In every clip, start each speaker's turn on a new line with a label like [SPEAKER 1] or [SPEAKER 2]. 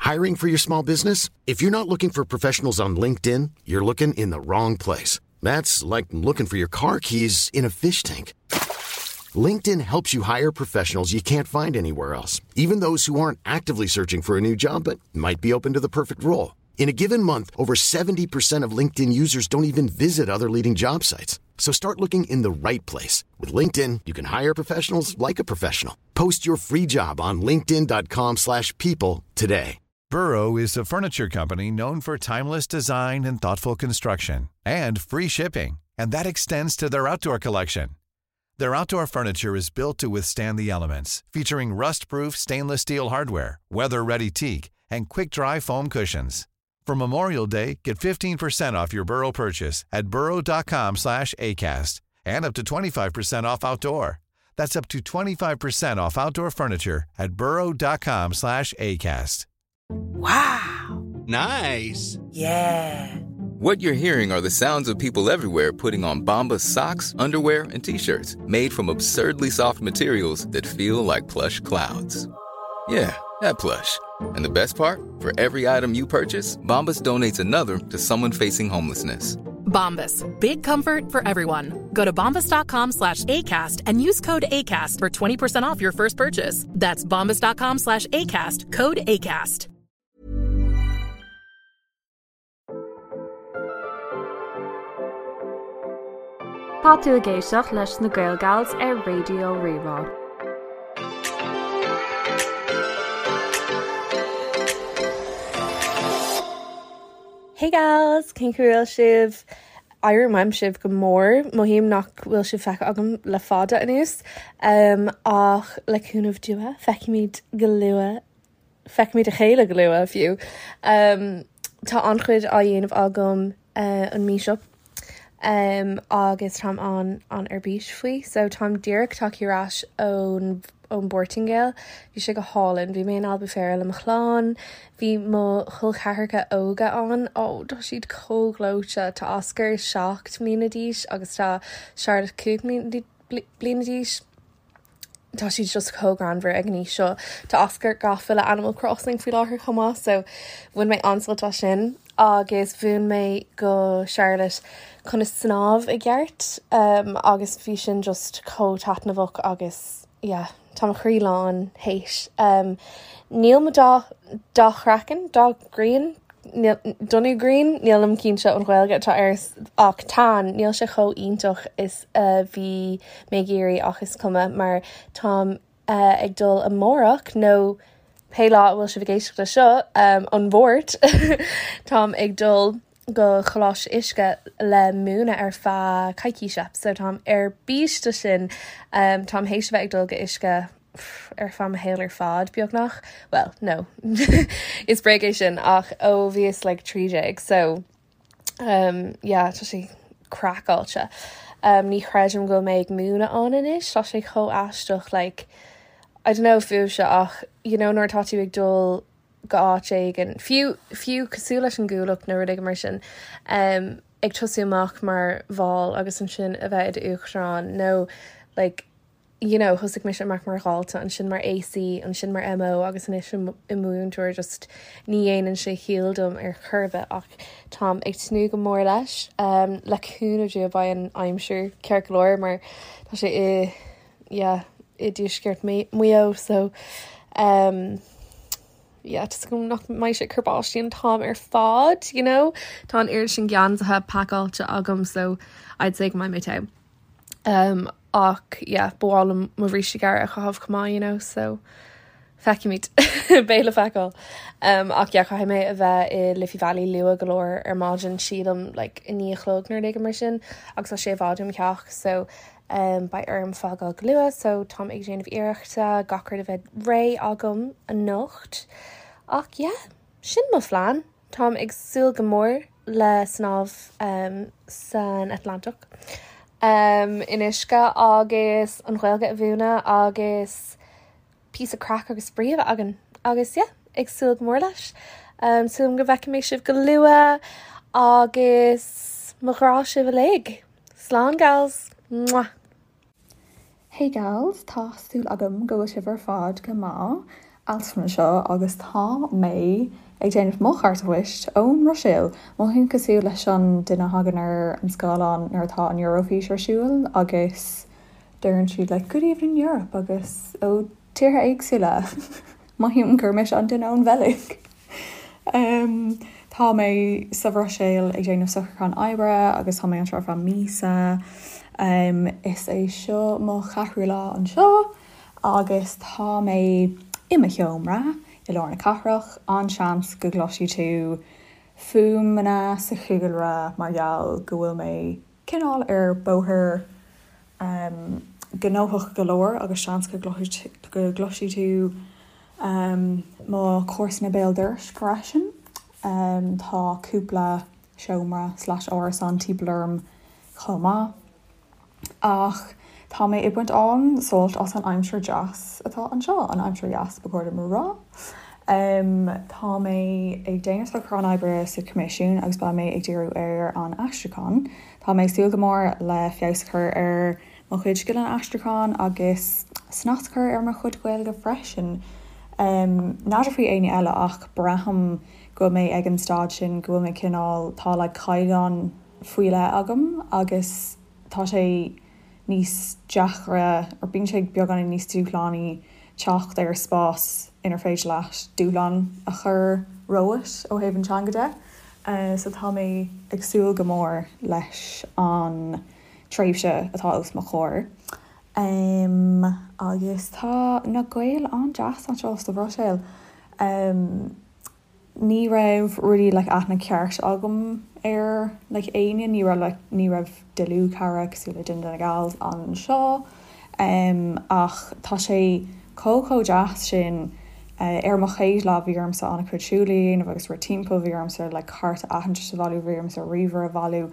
[SPEAKER 1] Hiring for your small business? If you're not looking for professionals on LinkedIn, you're looking in the wrong place. That's like looking for your car keys in a fish tank. LinkedIn helps you hire professionals you can't find anywhere else, even those who aren't actively searching for a new job but might be open to the perfect role. In a given month, over 70% of LinkedIn users don't even visit other leading job sites. So start looking in the right place. With LinkedIn, you can hire professionals like a professional. Post your free job on linkedin.com slash people today.
[SPEAKER 2] Burrow is a furniture company known for timeless design and thoughtful construction and free shipping, and that extends to their outdoor collection. Their outdoor furniture is built to withstand the elements, featuring rust-proof stainless steel hardware, weather-ready teak, and quick-dry foam cushions. For Memorial Day, get 15% off your Burrow purchase at burrow.com slash ACAST and up to 25% off outdoor. That's up to 25% off outdoor furniture at burrow.com slash ACAST.
[SPEAKER 3] Wow.
[SPEAKER 4] Nice.
[SPEAKER 3] Yeah.
[SPEAKER 5] What you're hearing are the sounds of people everywhere putting on Bombas socks, underwear, and t-shirts made from absurdly soft materials that feel like plush clouds. Yeah, that plush. And the best part? For every item you purchase, Bombas donates another to someone facing homelessness.
[SPEAKER 6] Bombas. Big comfort for everyone. Go to bombas.com slash ACAST and use code ACAST for 20% off your first purchase. That's bombas.com slash ACAST. Code ACAST.
[SPEAKER 7] Tá tú ag éisteacht leis na Gaelgals ar Raidió Rí-Rá.
[SPEAKER 8] Hey gals, cén chaoi a bhfuil sibh? Airím uaim sibh go mór, mothaím nach bhfuil sibh feicthe agam le fada anuas, ach le cúnamh Dé feicfimid go luath, feicfimid a chéile go luath fiú. Tá an-chuid á dhéanamh agam an mí seo agus táim an an ar bís faoi. So táim díreach tagtha ar ais ón ón bPortaingéil. Bhí sé go hálainn. Bhí mé in Albufeira le mo chlann. Bhí mo chol ceathracha óga ann. Ó, tá siad chomh gleoite. Tá Oscar 7 mbliana d'aois agus tá Charlotte 5 bliana d'aois. Tá siad just chomh greannmhar ag an aois seo. Tá Oscar gafa le Animal Crossing faoi láthair chomh maith so bhain mé an-sult as sin agus mhúin mé go Charlotte conas snámh i gceart um, agus bhí sin just chomh taitneamhach agus yeah, tá mo chroí lán théis. Um, níl mo dath dath craicinn, dath grian, donnú grian, nílim cinnte an Ghaeilge atá air ach tan, níl sé chomh iontach is a bhí mé ag iarraidh ach is cuma mar táim ag dul amárach nó pé lá a bhfuil sibh ag éisteacht leis seo, an Mháirt, táim ag dul go Coláiste Uisce le múineadh ar feadh coicíse so táim ar bís do sin. Táim théis a bheith ag dul go Uisce ar feadh mo shaol ar fad, beagnach. Bhuel, no, is bréag é sin ach ó bhíos like 13 so um, yeah, tá sé craiceáilte. Um, ní chreidim go bhfuil mé ag múineadh ann anois, tá sé chomh aisteach like, I don't know fúibhse ach you know nuair atá tú ag dul go áit éigin, fiú, fiú cosúil leis an gCuallacht nó rud éigin mar sin, um, ag tosú amach mar bhall agus ansin a bheith i d'uachtarán nó like, you know, thosaigh mise amach mar dhalta, ansin mar AC, ansin mar MO agus anois i mo mhúinteoir, just ní dhéanann sé ciall dom ar chor ar bith ach táim ag tnúth go mór leis. Um, le cúnamh Dé beidh an aimsir ceart go leor mar tá sé i, yeah, i dtuaisceart Mhaigh Eo so um, yeah, tá súil agam nach mbeidh sé ag cur báistí an t-am ar fad, you know? Tá an oiread sin geansaithe pacáilte agam so I'd say go mbeidh mé te. Um, ach yeah, ba mhaith liom mo bhríste gearr a chaitheamh chomh maith, you know, so feicfimid. Beidh le feiceáil. Um, ach yeah, caithfidh mé a bheith i Liffey Valley luath go leor ar maidin, sílim like 9 a chlog nó rud éigin mar sin, agus tá sé i bhfad ó mo theach, so um, beidh orm fágáil go luath, so táim ag déanamh iarrachta gach rud a bheith réidh agam anocht. Ach yeah, sin mo phlean. Táim ag súil go mór le snámh san Atlantach in uisce agus an Ghaeilge a mhúineadh agus píosa craic agus spraoi a bheith againn agus yeah, ag súil go mór leis. Súil agam go bhfeicfidh mé sibh go luath agus mo ghrá sibh uilig. Slán gals! Mwah!
[SPEAKER 9] Hey gals, tá súil agam go bhfuil sibh ar fad go maith.
[SPEAKER 4] Alison anseo agus tá mé ag déanamh mo chárta poist ón mBruiséil. Mothaím cosúil leis an duine a thagann ar an scáileán nuair atá an Eurofís ar siúl agus deireann siad like 'Good evening Europe' agus ó tíortha éagsúla. Mothaím gur mise an duine ón Bheilg. Tá mé sa Bhruiséil ag déanamh socrúchán oibre agus tá mé anseo ar feadh míosa. Is é seo mo cheathrú lá anseo agus tá mé i mo sheomra i lár na cathrach. An-seans go gcloisfidh tú fuaimeanna sa chúlra mar gheall go bhfuil mé cineál ar bóthar gnóthach go leor agus seans go gcloisfidh tú mo chomharsana béal dorais freisin. Tá cúpla seomra slash árasán timpeall orm chomh maith. Ach tá mé ag baint an-sult as an aimsir deas atá anseo, an aimsir dheas ba chóir dom a rá. Tá mé ag déanamh socrúchán oibre sa Choimisiún agus beidh mé ag díriú ar an aistriúchán. Tá mé ag súil go mór le feabhas a chur ar mo chuid scileanna aistriúcháin agus snas a chur ar mo chuid Gaeilge freisin. N'fheadar faoi éinne eile ach braithim go bhfuil mé ag an staid sin go bhfuil mé cineál, tá like caighdeán faoi leith agam agus tá sé níos deacra, or bíonn sé beagáinín níos dúshlánaí teacht ar spás inar féidir leat dúshlán a chur romhat ó thaobh an teanga de. So tá mé ag súil go mór leis an tréimhse atá os mo chomhair. Agus tá na Gaeil an-deas anseo sa Bhruiséil. Ní raibh really like aithne ceart agam ar like éinne, ní raibh like ní raibh dlúthchara cosúil le duine de na gals anseo ach tá sé chomh chomh deas sin. Ar mo chéad lá bhí ormsa an-chuid siúil a dhéanamh agus rith timpeall, bhí ormsa like cárta aitheantais a bhailiú, bhí ormsa ríomhaire a bhailiú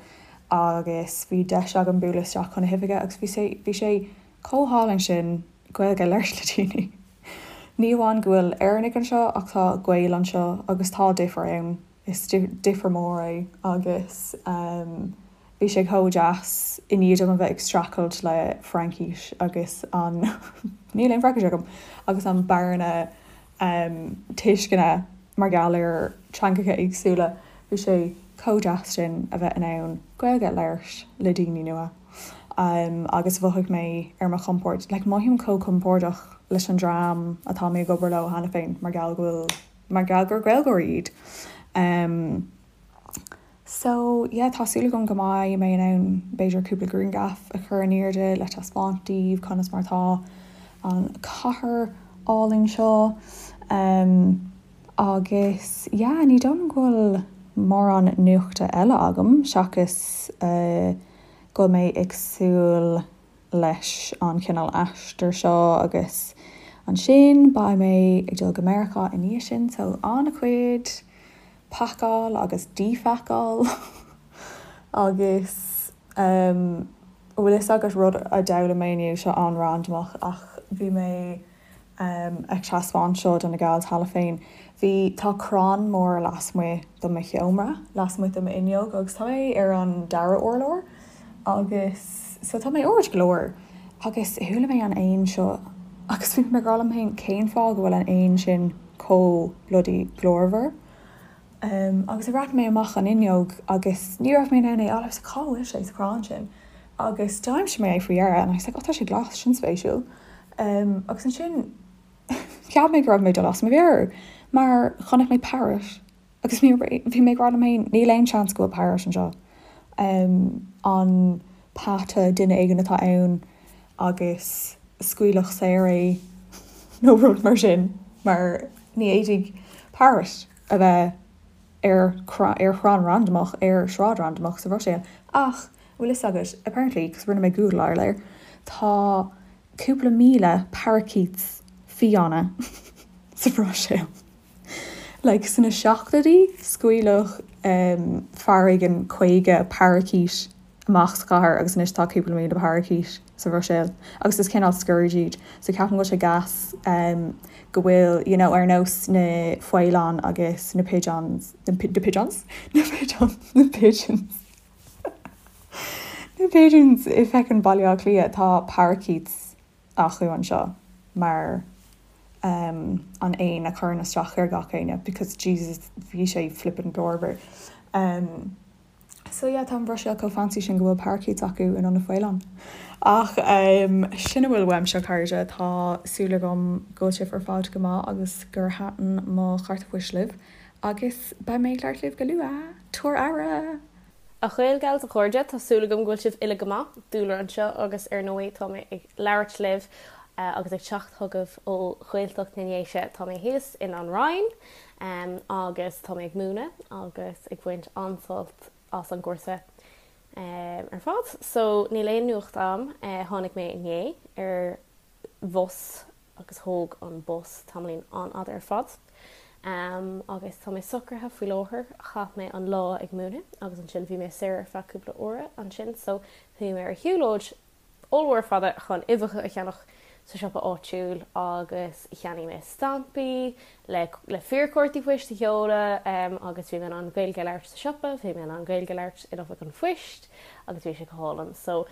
[SPEAKER 4] agus bhí deis agam bualadh isteach chun na hoifige agus bhí sé bhí sé chomh hálainn sin Gaeilge a labhairt le daoine. Ní amháin go bhfuil Éireannaigh anseo ach tá Gaeil anseo agus tá difear ann, is difear mór é agus bhí sé chomh deas i ndiaidh dom a bheith ag streachailt le Fraincis agus an, níl aon Fraincis agam, agus an bearna tuisceana mar gheall ar teangacha éagsúla, bhí sé chomh deas sin a bheith in ann Gaeilge a labhairt le daoine nua. Agus mhothaigh mé ar mo chompord, like mothaím chomh compordach leis an dream atá mé ag obair leo cheana féin mar gheall go bhfuil, mar gheall gur Gaeilgeoirí iad. So yeah tá súil agam go mbeidh mé in ann b'fhéidir cúpla grianghraf a chur in airde le taispeáint daoibh conas mar atá an chathair álainn seo. Agus yeah ní dóigh liom go bhfuil mórán nuachta eile agam seachas go bhfuil mé ag súil leis an chineál aistir seo agus ansin beidh mé ag dul go Meiriceá i ndiaidh sin so an-chuid pacáil agus díphacáil agus an bhfuil fhios agat rud a d'fhoghlaim mé inniu seo an-randamach ach bhí mé ag taispeáint seo do na gals cheana féin. Bhí, tá crann mór lasmuigh de mo sheomra, lasmuigh de m'fhuinneog agus tá mé ar an dara urlár agus so tá mé ard go leor agus chuala mé an éan seo agus bhí mé ag rá liom féin cén fáth go bhfuil an éan sin chomh bloody glórmhar? Agus bhreathnaigh mé amach an fhuinneog agus ní raibh mé in ann é a fháil. I was like cá bhfuil sé sa chrann sin? Agus d'aimsigh mé é faoi dheireadh and I was like oh tá sé glas, sin spéisiúil. Agus ansin cheap mé go raibh mé ag dul as mo mheabhair mar chonaic mé parrot agus bhí mé ag rá liom féin níl aon seans go bhfuil parrot anseo. An peata duine éigin atá ann agus scaoileadh saor é nó rud mar sin mar ní fhéadfaidh parrot a bheith ar ar chrann randamach ar shráid randamach sa Bhruiséil. Ach, bhfuil fhios agat, apparently, cos rinne mé googleáil air, tá cúpla míle parakeets fiáine sa Bhruiséil. Like, sna seachtóidí, scaoileadh fear éigin 50 parakeet amach sa chathair agus anois tá cúpla míle parakeet sa Bhruiséil agus is cineál scourge iad so ceapaim go bhfuil sé gas go bhfuil you know ar nós na faoileáin agus na pigeons na pigeons? na pigeons na pigeons na pigeons i feckin Baile Átha Cliath tá parakeets acu anseo mar. um an éan a chuireann isteach ar gach éinne because Jesus bhí sé flippin' glórmhar. Um so yeah tá an Bhruiséil chomh fancy sin go bhfuil parakeets acu in ionad faoileán. Ach um sin a bhfuil uaimse a chairde, tá súil agam go bhfuil sibh ar fad go maith agus gur thaitin mo chárta poist libh agus beidh mé ag labhairt libh go luath! Tabhair aire!
[SPEAKER 8] A Ghaelgals, a chairde, tá súil agam go bhfuil sibh uile go maith. Dúlra anseo agus ar ndóigh tá mé ag labhairt libh agus ag teacht chugaibh ó Ghaeltacht na nDéise. Tá mé thíos in An Rinn agus tá mé ag múineadh agus ag baint an-sult as an gcúrsa ar fad. So níl aon nuacht a'm, tháinig mé inné ar bhus agus thóg an bus tamaillín an-fhada ar fad. Agus tá mé socraithe faoi láthair, chaith mé an lá ag múineadh agus ansin bhí mé saor ar feadh cúpla uaire ansin so chuaigh mé ar shiúlóid ollmhór fada chun uibheacha a cheannach sa siopa áitiúil agus cheannaigh mé stampaí le le fíorchártaí poist a sheoladh agus bhí mé in ann Gaeilge a labhairt sa siopa, bhí mé in ann Gaeilge a labhairt in oifig an phoist agus bhí sé go hálainn. So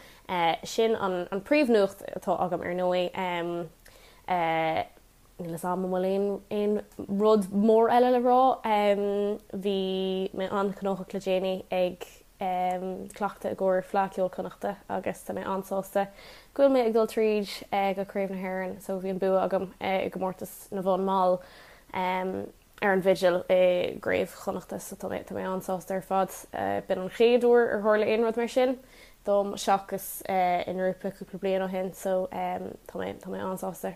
[SPEAKER 8] Sin an príomhnuacht atá agam ar ndóigh. Níl a fhios agam an bhfuil aon rud mór eile le rá. Bhí mé an-ghnóthach le déanaí ag cleachtadh i gcomhair Fleadh Cheoil Chonnachta agus tá mé an-sásta go bhfuil mé ag dul tríd go Craobh na hÉireann so bhí an bua agam i gcomórtas na bhfonn mall. ar an bhfidil i gCraobh Chonnachta so tá mé tá mé an-sásta ar fad. B'in an chéad uair ar tharla aon rud mar sin dom seachas i ngrúpa cúpla bliain ó shin so tá mé tá mé an-sásta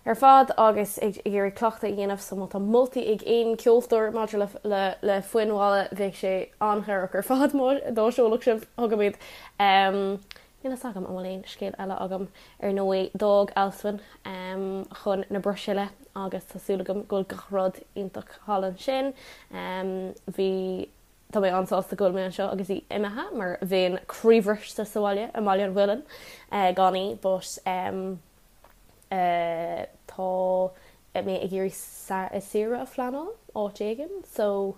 [SPEAKER 8] ar fad agus ag iarraidh cleachtadh a dhéanamh so má tá moltaí ag aon ceoltóir maidir le le le foinn mhalla bheadh sé an-chabhrach ar fad má dá seolfadh sibh chugam iad. Níl a fhios agam an bhfuil aon scéal eile agam. Ar ndóigh, d'fhág Alswyn chun na Bruiséile agus tá súil agam go bhfuil gach rud iontach thall ansin. Bhí, tá mé an-sásta go bhfuil mé anseo agus í imithe mar bheinn croíbhriste sa bhaile, i mBaile an Mhuilinn, gan í but tá mé ag iarraidh saoire a phleanáil áit éigin so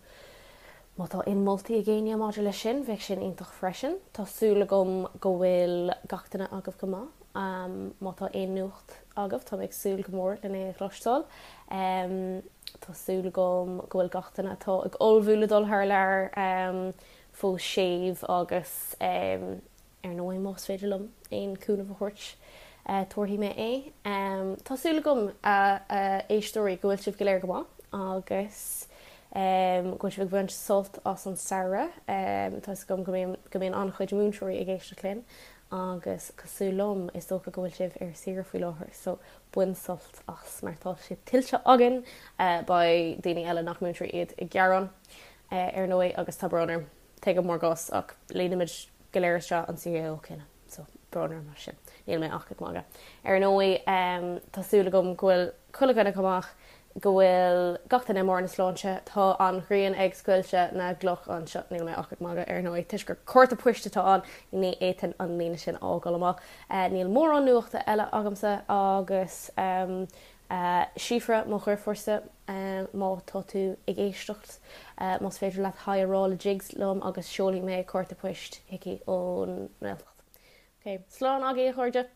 [SPEAKER 8] má tá aon moltaí ag éinne maidir leis sin bheadh sin iontach freisin. Tá súil agam go bhfuil gach duine agaibh go maith. Má tá aon nuacht agaibh tá mé ag súil go mór lena é a chloisteáil. Tá súil agam go bhfuil gach duine atá ag ullmhú le dul thar lear fós séimh agus Ar ndóigh, más féidir liom aon cúnamh a thabhairt, tabharfaidh mé é. Tá súil agam, a éisteoirí, go bhfuil sibh go léir go maith agus go bhfuil sibh ag baint sult as an samhradh. Tá 'fhios agam go mbíonn go mbíonn an-chuid múinteoirí ag éisteacht linn agus cosúil liom, is dócha go bhfuil sibh ar saoire faoi láthair, so bain sult as mar tá sé tuillte againn. Beidh daoine eile nach múinteoirí iad ag gearán, ar ndóigh, agus tá brón orm. Tuigim bhur gcás ach líonaimid go léir isteach an CAO céanna so brón orm as sin. Níl mé ach ag magadh. Ar ndóigh tá súil agam go bhfuil chuile dhuine go maith, go bhfuil gach duine i mbarr na sláinte. Tá an ghrian ag scoilteadh na gcloch anseo, níl mé ach ag magadh ar ndóigh toisc gur cárta poist atá ann, ní fhéadfainn an líne sin a fhágáil amach. Níl mórán nuachta eile agamsa agus Síofra, mo dheirfiúrsa, má tá tú ag éisteacht, más féidir leat haigh a rá le Jigs liom agus seolfaidh mé cárta poist chuici ón nGaeltacht. Ok, slán agaibh a chairde!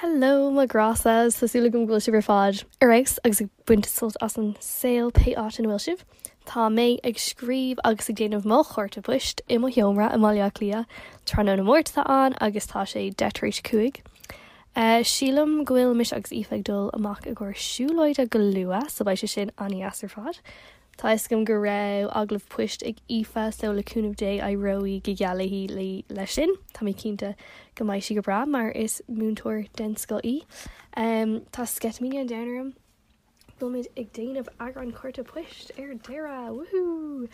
[SPEAKER 9] Hello mo ghrása, tá súil agam go bhfuil sibh ar fad ar fheabhas agus ag baint sult as an saol pé áit ina bhfuil sibh. Tá mé ag scríobh agus ag déanamh mo chárta poist i mo sheomra i mBaile Átha Cliath. Tráthnóna Máirt atá ann agus tá sé deich tar éis a 5. Sílim go bhfuil mise agus Aoife ag dul amach i gcomhair siúlóide go luath so beidh sé sin an-dheas ar fad. Tá a fhios agam go raibh agallamh poist ag Aoife so le cúnamh Dé éireoidh go geal léi leis sin. Tá mé cinnte go mbeidh sí go breá mar is múinteoir den scoth í. Tá sceitimíní an domhain orm. Beimid ag déanamh eagrán cárta poist ar deireadh! Woohoo!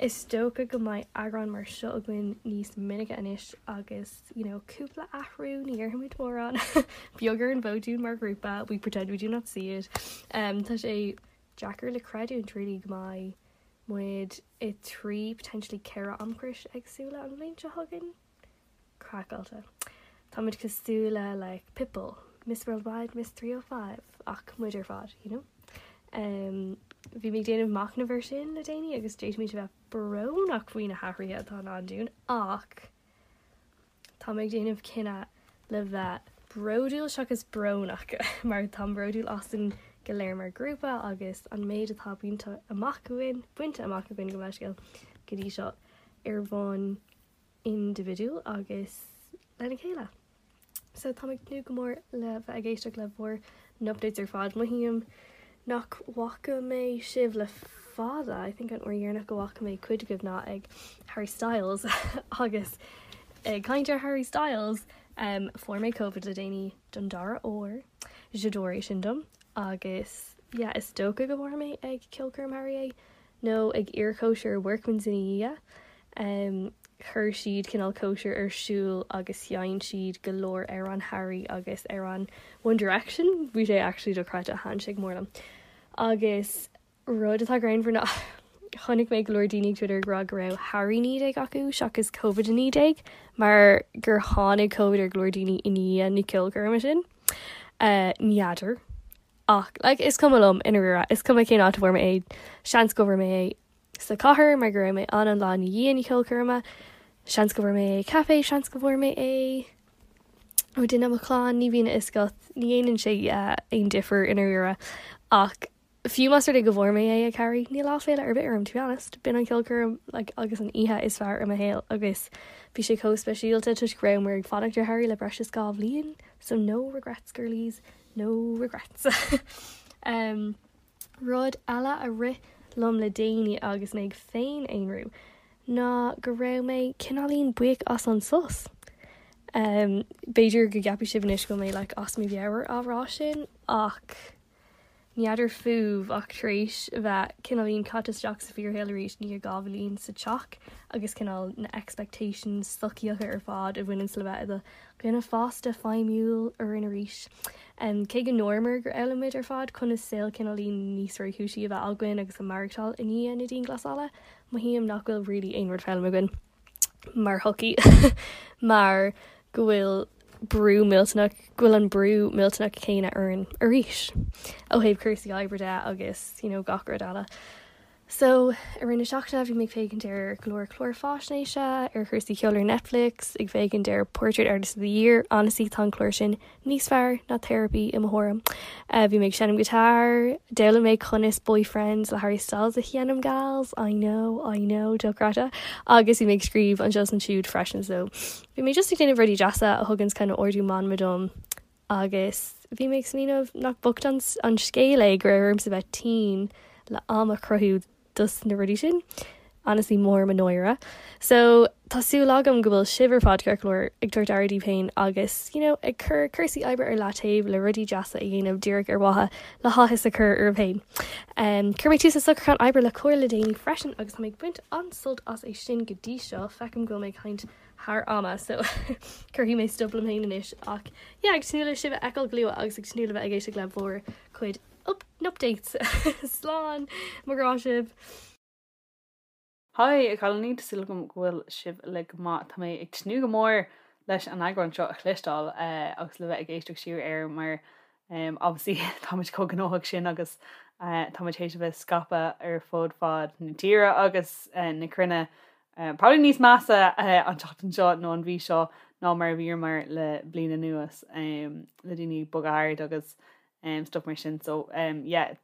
[SPEAKER 9] Is dócha go mbeidh eagrán mar seo againn níos minice anois agus you know cúpla athrú, ní dhéarfaimid mórán, beag ar an bhfód dúinn mar ghrúpa, we pretend we do not see it. Um, tá sé deacair le creidiúint really go mbeidh muid i 3 potentially 4 amchrios éagsúla an bhliain seo chugainn. Craiceáilte. Táimid cosúil le like Pitbull, Miss Worldwide, Miss 305 ach muid ar fad, you know? Um, bhí mé ag déanamh machnamh ar sin le déanaí agus d'fhéadfaimis a bheith brónach faoi na hathruithe atá i ndán dúinn ach tá mé ag déanamh cinneadh le bheith bródúil seachas brónach mar táim bródúil as an. go léir mar ghrúpa agus an méid atá bainte amach againn, bainte amach againn gabh mo leithscéal, go dtí seo ar bhonn indibhidiúil agus lena chéile. So táim ag tnúth go mór le bheith ag éisteacht le bhur n-updates ar fad. Mothaím nach bhfaca mé sibh le fada, I think an uair dheireanach go bhfaca mé cuid agaibh ná ag Harry Styles agus ag caint ar Harry Styles um, fuair mé Covid le déanaí don dara huair, j'adore é sin dom agus yeah is dócha go bhfuair mé ag ceolchoirm Harry é nó ag iarchóisir Workman's ina dhiaidh. Um, chuir siad cineál cóisir ar siúl agus sheinn siad go leor amhrán Harry agus amhrán One Direction, bhí sé actually dochreidte, thaitin sé go mór liom. Agus rud atá greannmhar ná chonaic mé go leor daoine ag Twitter ag rá go raibh Harry 19 acu seachas Covid-19 mar gur tháinig Covid ar go leor daoine i ndiaidh na ceolchoirme sin. Uh, N'fheadar. Ach like is cuma liom i ndáiríre, is cuma cén áit a bhfuair mé é, seans go bhfuair mé é sa chathair mar go raibh mé ann an lá ina dhiaidh na ceolchoirme, seans go bhfuair mé é ag caife, seans go bhfuair mé é ó duine i mo chlann, ní bhíonn a fhios agat, ní dhéanann sé aon difear i ndáiríre. Ach fiú más rud é go bhfuair mé é ag Harry, níl áiféala ar bith orm to be honest, b'in an cheolchoirm like agus an oíche is fearr i mo shaol agus bhí sé chomh speisialta toisc go rabhamar ag fanacht ar Harry le breis is 2 bhliain, so no regrets girlies. No regrets. um, rud eile a rith liom le déanaí agus mé ag féin-aonrú ná go raibh mé cineáilín buíoch as an sos. Um, b'fhéidir go gceapfaidh sibh anois go bhfuil mé like, as mo mheabhair á rá sin ach N'fheadar fúibh ach tar éis a bheith cineáilín caite isteach sa fíorshaol arís i ndiaidh 2 bhliain sa teach agus cineál na expectations sochaíocha ar fad a bhaineanns le bheith i do dhuine fásta feidhmiúil orainn arís. Cé go ndúramar gur fhoghlaim muid ar fad conas saol cineáilín níos réchúisí a bheith againn agus a maireachtáil i ndiaidh na dianghlasála, mothaím nach bhfuil really aon rud foghlamtha againn. mar shochaí mar go bhfuil brú millteanach, go bhfuil an brú millteanach céanna orainn arís ó thaobh cúrsaí oibre de agus you know gach rud eile. So i rith na seachtaine bhí mé ag féachaint ar go leor clár faisnéise ar chúrsaí ceoil ar Netflix, ag féachaint ar Portrait Artist of the Year, honestly tá an clár sin níos fearr ná therapy i mo thuairim. Bhí mé ag seinm guitar, d'fhoghlaim mé conas Boyfriends le Harry Styles a sheinm gals, I know, I know, dochreidte, agus bhí mé ag scríobh anseo is ansiúd freisin so bhí mé just ag déanamh rudaí deasa a thuganns kind of ardú meanma dom agus bhí mé ag smaoineamh nach bocht an scéal é go raibh ormsa bheith tinn le am a chruthú dos na rudaí sin. Honestly mór mo náire. So tá súil agam go bhfuil sibh ar fad ceart go leor ag tabhairt aire daoibh féin agus you know ag cur cúrsaí oibre ar leataobh le rudaí deasa a dhéanamh díreach ar mhaithe le háthas a chur oraibh féin. Um, chuir mé tús le socrúchán oibre le Comhar le déanaí freisin agus tá mé ag baint an-sult as é sin go dtí seo. Feicim go bhfuil mé ag caint thar ama so cuirfidh mé stop liom féin anois ach yeah ag tnúth le sibh a fheiceáil go luath agus ag tnúth le bheith ag éisteacht le bhur cuid updates. Slán! Mo ghrá sibh!
[SPEAKER 10] Hi, a chailíní, tá súil agam go bhfuil sibh uilig go maith. Tá mé ag tnúth go mór leis an eagrán seo a chloisteáil agus le bheith ag éisteacht siar air mar obviously táimid chomh gnóthach sin agus táimid théis a bheith scaipthe ar fud fad na tíre agus na cruinne. Probably níos measa an tseachtain seo nó an mhí seo ná mar a bhíomar le bliain anuas le daoine ag bogadh thart agus stuff mar sin so yeah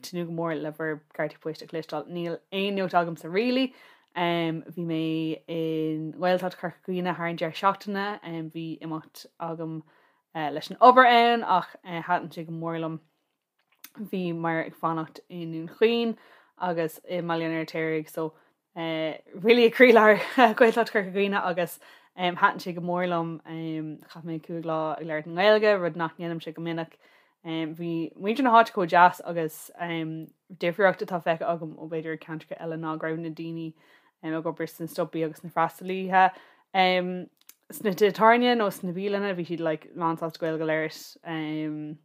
[SPEAKER 10] tnúth go mór le bhur gcártaí poist a chloisteáil. Níl aon nuacht agamsa really. Bhí mé i nGaeltacht Chorca Dhuibhne thar an deireadh seachtaine, bhí imeacht agam leis an obair ann ach thaitin sé go mór liom. Bhíomar ag fanacht i nDún Chaoin agus i mBaile an Fheirtéaraigh so really i gcroílár Ghaeltacht Chorca Dhuibhne agus thaitin sé go mór liom. Chaith mé 5 lá ag labhairt i nGaeilge, rud nach ndéanaimse go minic. Bhí muintir na háite chomh deas agus difríocht atá feicthe agam ó b'fhéidir ceantracha eile ná go raibh na daoine ag obair sna siopaí agus na freastalaithe sna tithe tábhairne nó sna bialanna, bhí siad like lánsásta Gaeilge a labhairt.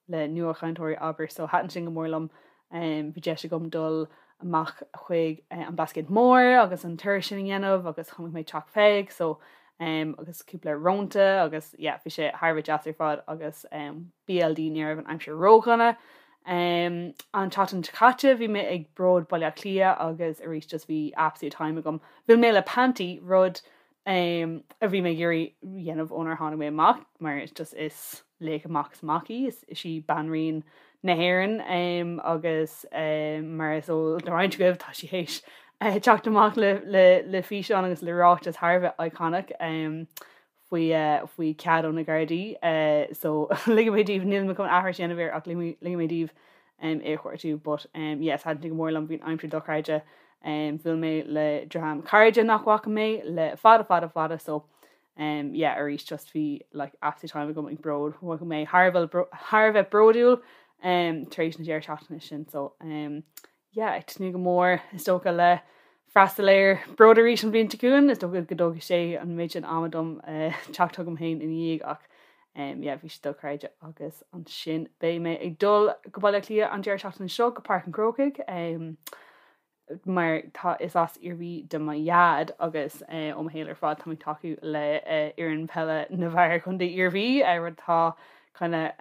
[SPEAKER 10] le nuachainteoirí abair so thaitin sin go mór liom. Bhí deis agam dul amach chuig an Blascaod Mór agus an turas sin a dhéanamh agus chonaic mé Teach Pheig so agus cúpla rónta agus yeah bhí sé thar a bheith deas ar fad agus BLD ní raibh an aimsir ródhona. An tseachtain seo caite bhí mé ag Bród Baile Átha Cliath agus arís just bhí absolute time agam. Bhuail mé le Panti rud a bhí mé ag iarraidh dhéanamh ónar tháinig mé amach mar is just is laoch amach is amach í, is í banríon na hÉireann agus mar is eol do roinnt agaibh tá sí théis teacht amach le le físeán agus le ráiteas thar a bheith iconic faoi faoi cead ó na Gardaí so ligfidh mé daoibh níl mé chun aithris a dhéanamh air ach ligfidh mé daoibh é a chuartú but yes thaitin sé go mór liom bhí an aimsir dochreidte bhuail mé le dream cairde nach bhfaca mé le fada fada fada so Um yeah arís just bhí like absolute time agam ag bród mhothaigh mé thar a bheith thar a bheith bródúil um tar éis na deireadh seachtaine sin so um yeah ag tnúth go mór is dócha le freastal ar Bród arís an bhliain seo chugainn is dócha go dtógfaidh sé an méid sin ama dom uh, teacht chugam féin ina dhiaidh ach um, yeah, bhí sé dochreidte agus ansin beidh mé ag dul go Baile Átha Cliath an deireadh seachtaine seo go Páirc an Chrócaigh um, mar tá is as Iarmhí do mo dhaid agus ó mo shaol ar fad táim ag tacú le fhoireann peile na bhfear Chontae Iarmhí, rud atá kind of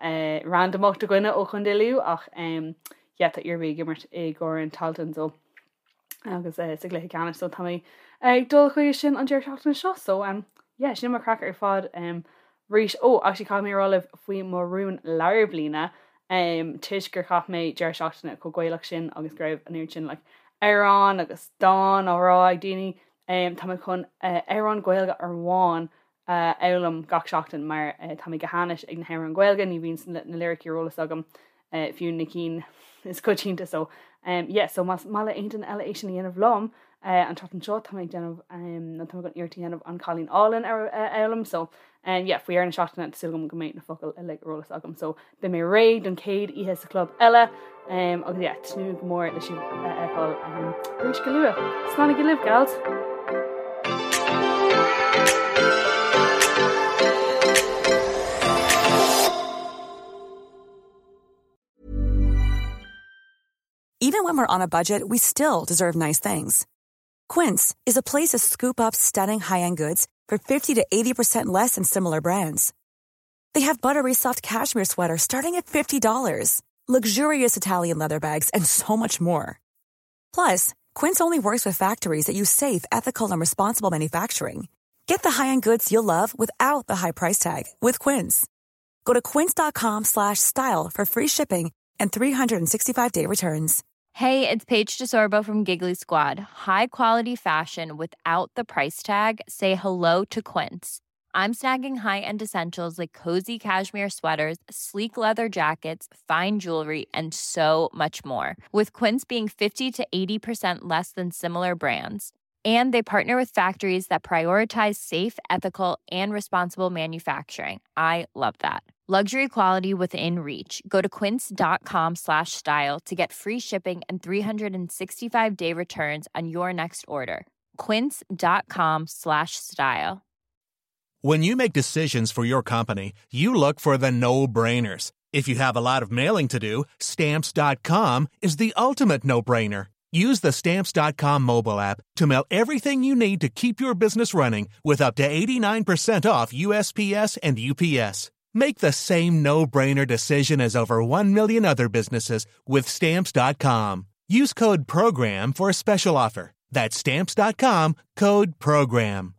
[SPEAKER 10] randamach do dhuine ó Chontae Lú ach yeah tá Iarmhí ag imirt i gCorn Tailteann so agus sa gcluiche ceannais so tá mé ag dul chuige sin an deireadh seachtaine seo so yeah sin mo chraic ar fad. Arís, ó, actually caithfidh mé a rá libh faoi mo rún lár bliana, toisc gur chaith mé deireadh seachtaine chomh Gaelach sin agus go raibh an oiread sin like amhrán agus dán á rá ag daoine, tá mé chun amhrán Gaeilge amháin a fhoghlaim gach seachtain mar tá mé go hainnis ag na hamhráin Ghaeilge, ní bhíonn na liricí ar eolas agam fiú na cinn is coitianta so yeah so más maith le aon duine eile é sin a dhéanamh liom an tseachtain seo tá mé ag déanamh nó tá mé chun iarracht a dhéanamh An Cailín Álainn a fhoghlaim so yeah faoi dheireadh na seachtaine tá súil agam go mbeidh na focail uilig ar eolas agam so beidh mé réidh don chéad oíche sa chlub eile agus yeah tnúth go mór le sibh a fheiceáil arís go luath. Slán agaibh libh gals!
[SPEAKER 11] Even when we're on a budget, we still deserve nice things. Quince is a place to scoop up stunning high-end goods for 50 to 80% less than similar brands. They have buttery soft cashmere sweaters starting at $50, luxurious Italian leather bags, and so much more. Plus, Quince only works with factories that use safe, ethical, and responsible manufacturing. Get the high-end goods you'll love without the high price tag with Quince. Go to quince.com slash style for free shipping and 365-day returns.
[SPEAKER 12] Hey, it's Paige DeSorbo from Giggly Squad. High quality fashion without the price tag. Say hello to Quince. I'm snagging high-end essentials like cozy cashmere sweaters, sleek leather jackets, fine jewelry, and so much more. With Quince being 50 to 80% less than similar brands. And they partner with factories that prioritize safe, ethical, and responsible manufacturing. I love that. Luxury quality within reach. Go to quince.com slash style to get free shipping and 365 day returns on your next order. Quince.com slash style.
[SPEAKER 13] When you make decisions for your company, you look for the no brainers. If you have a lot of mailing to do, stamps.com is the ultimate no brainer. Use the stamps.com mobile app to mail everything you need to keep your business running with up to 89% off USPS and UPS. Make the same no brainer decision as over 1 million other businesses with stamps.com. Use code PROGRAM for a special offer. That's stamps.com code PROGRAM.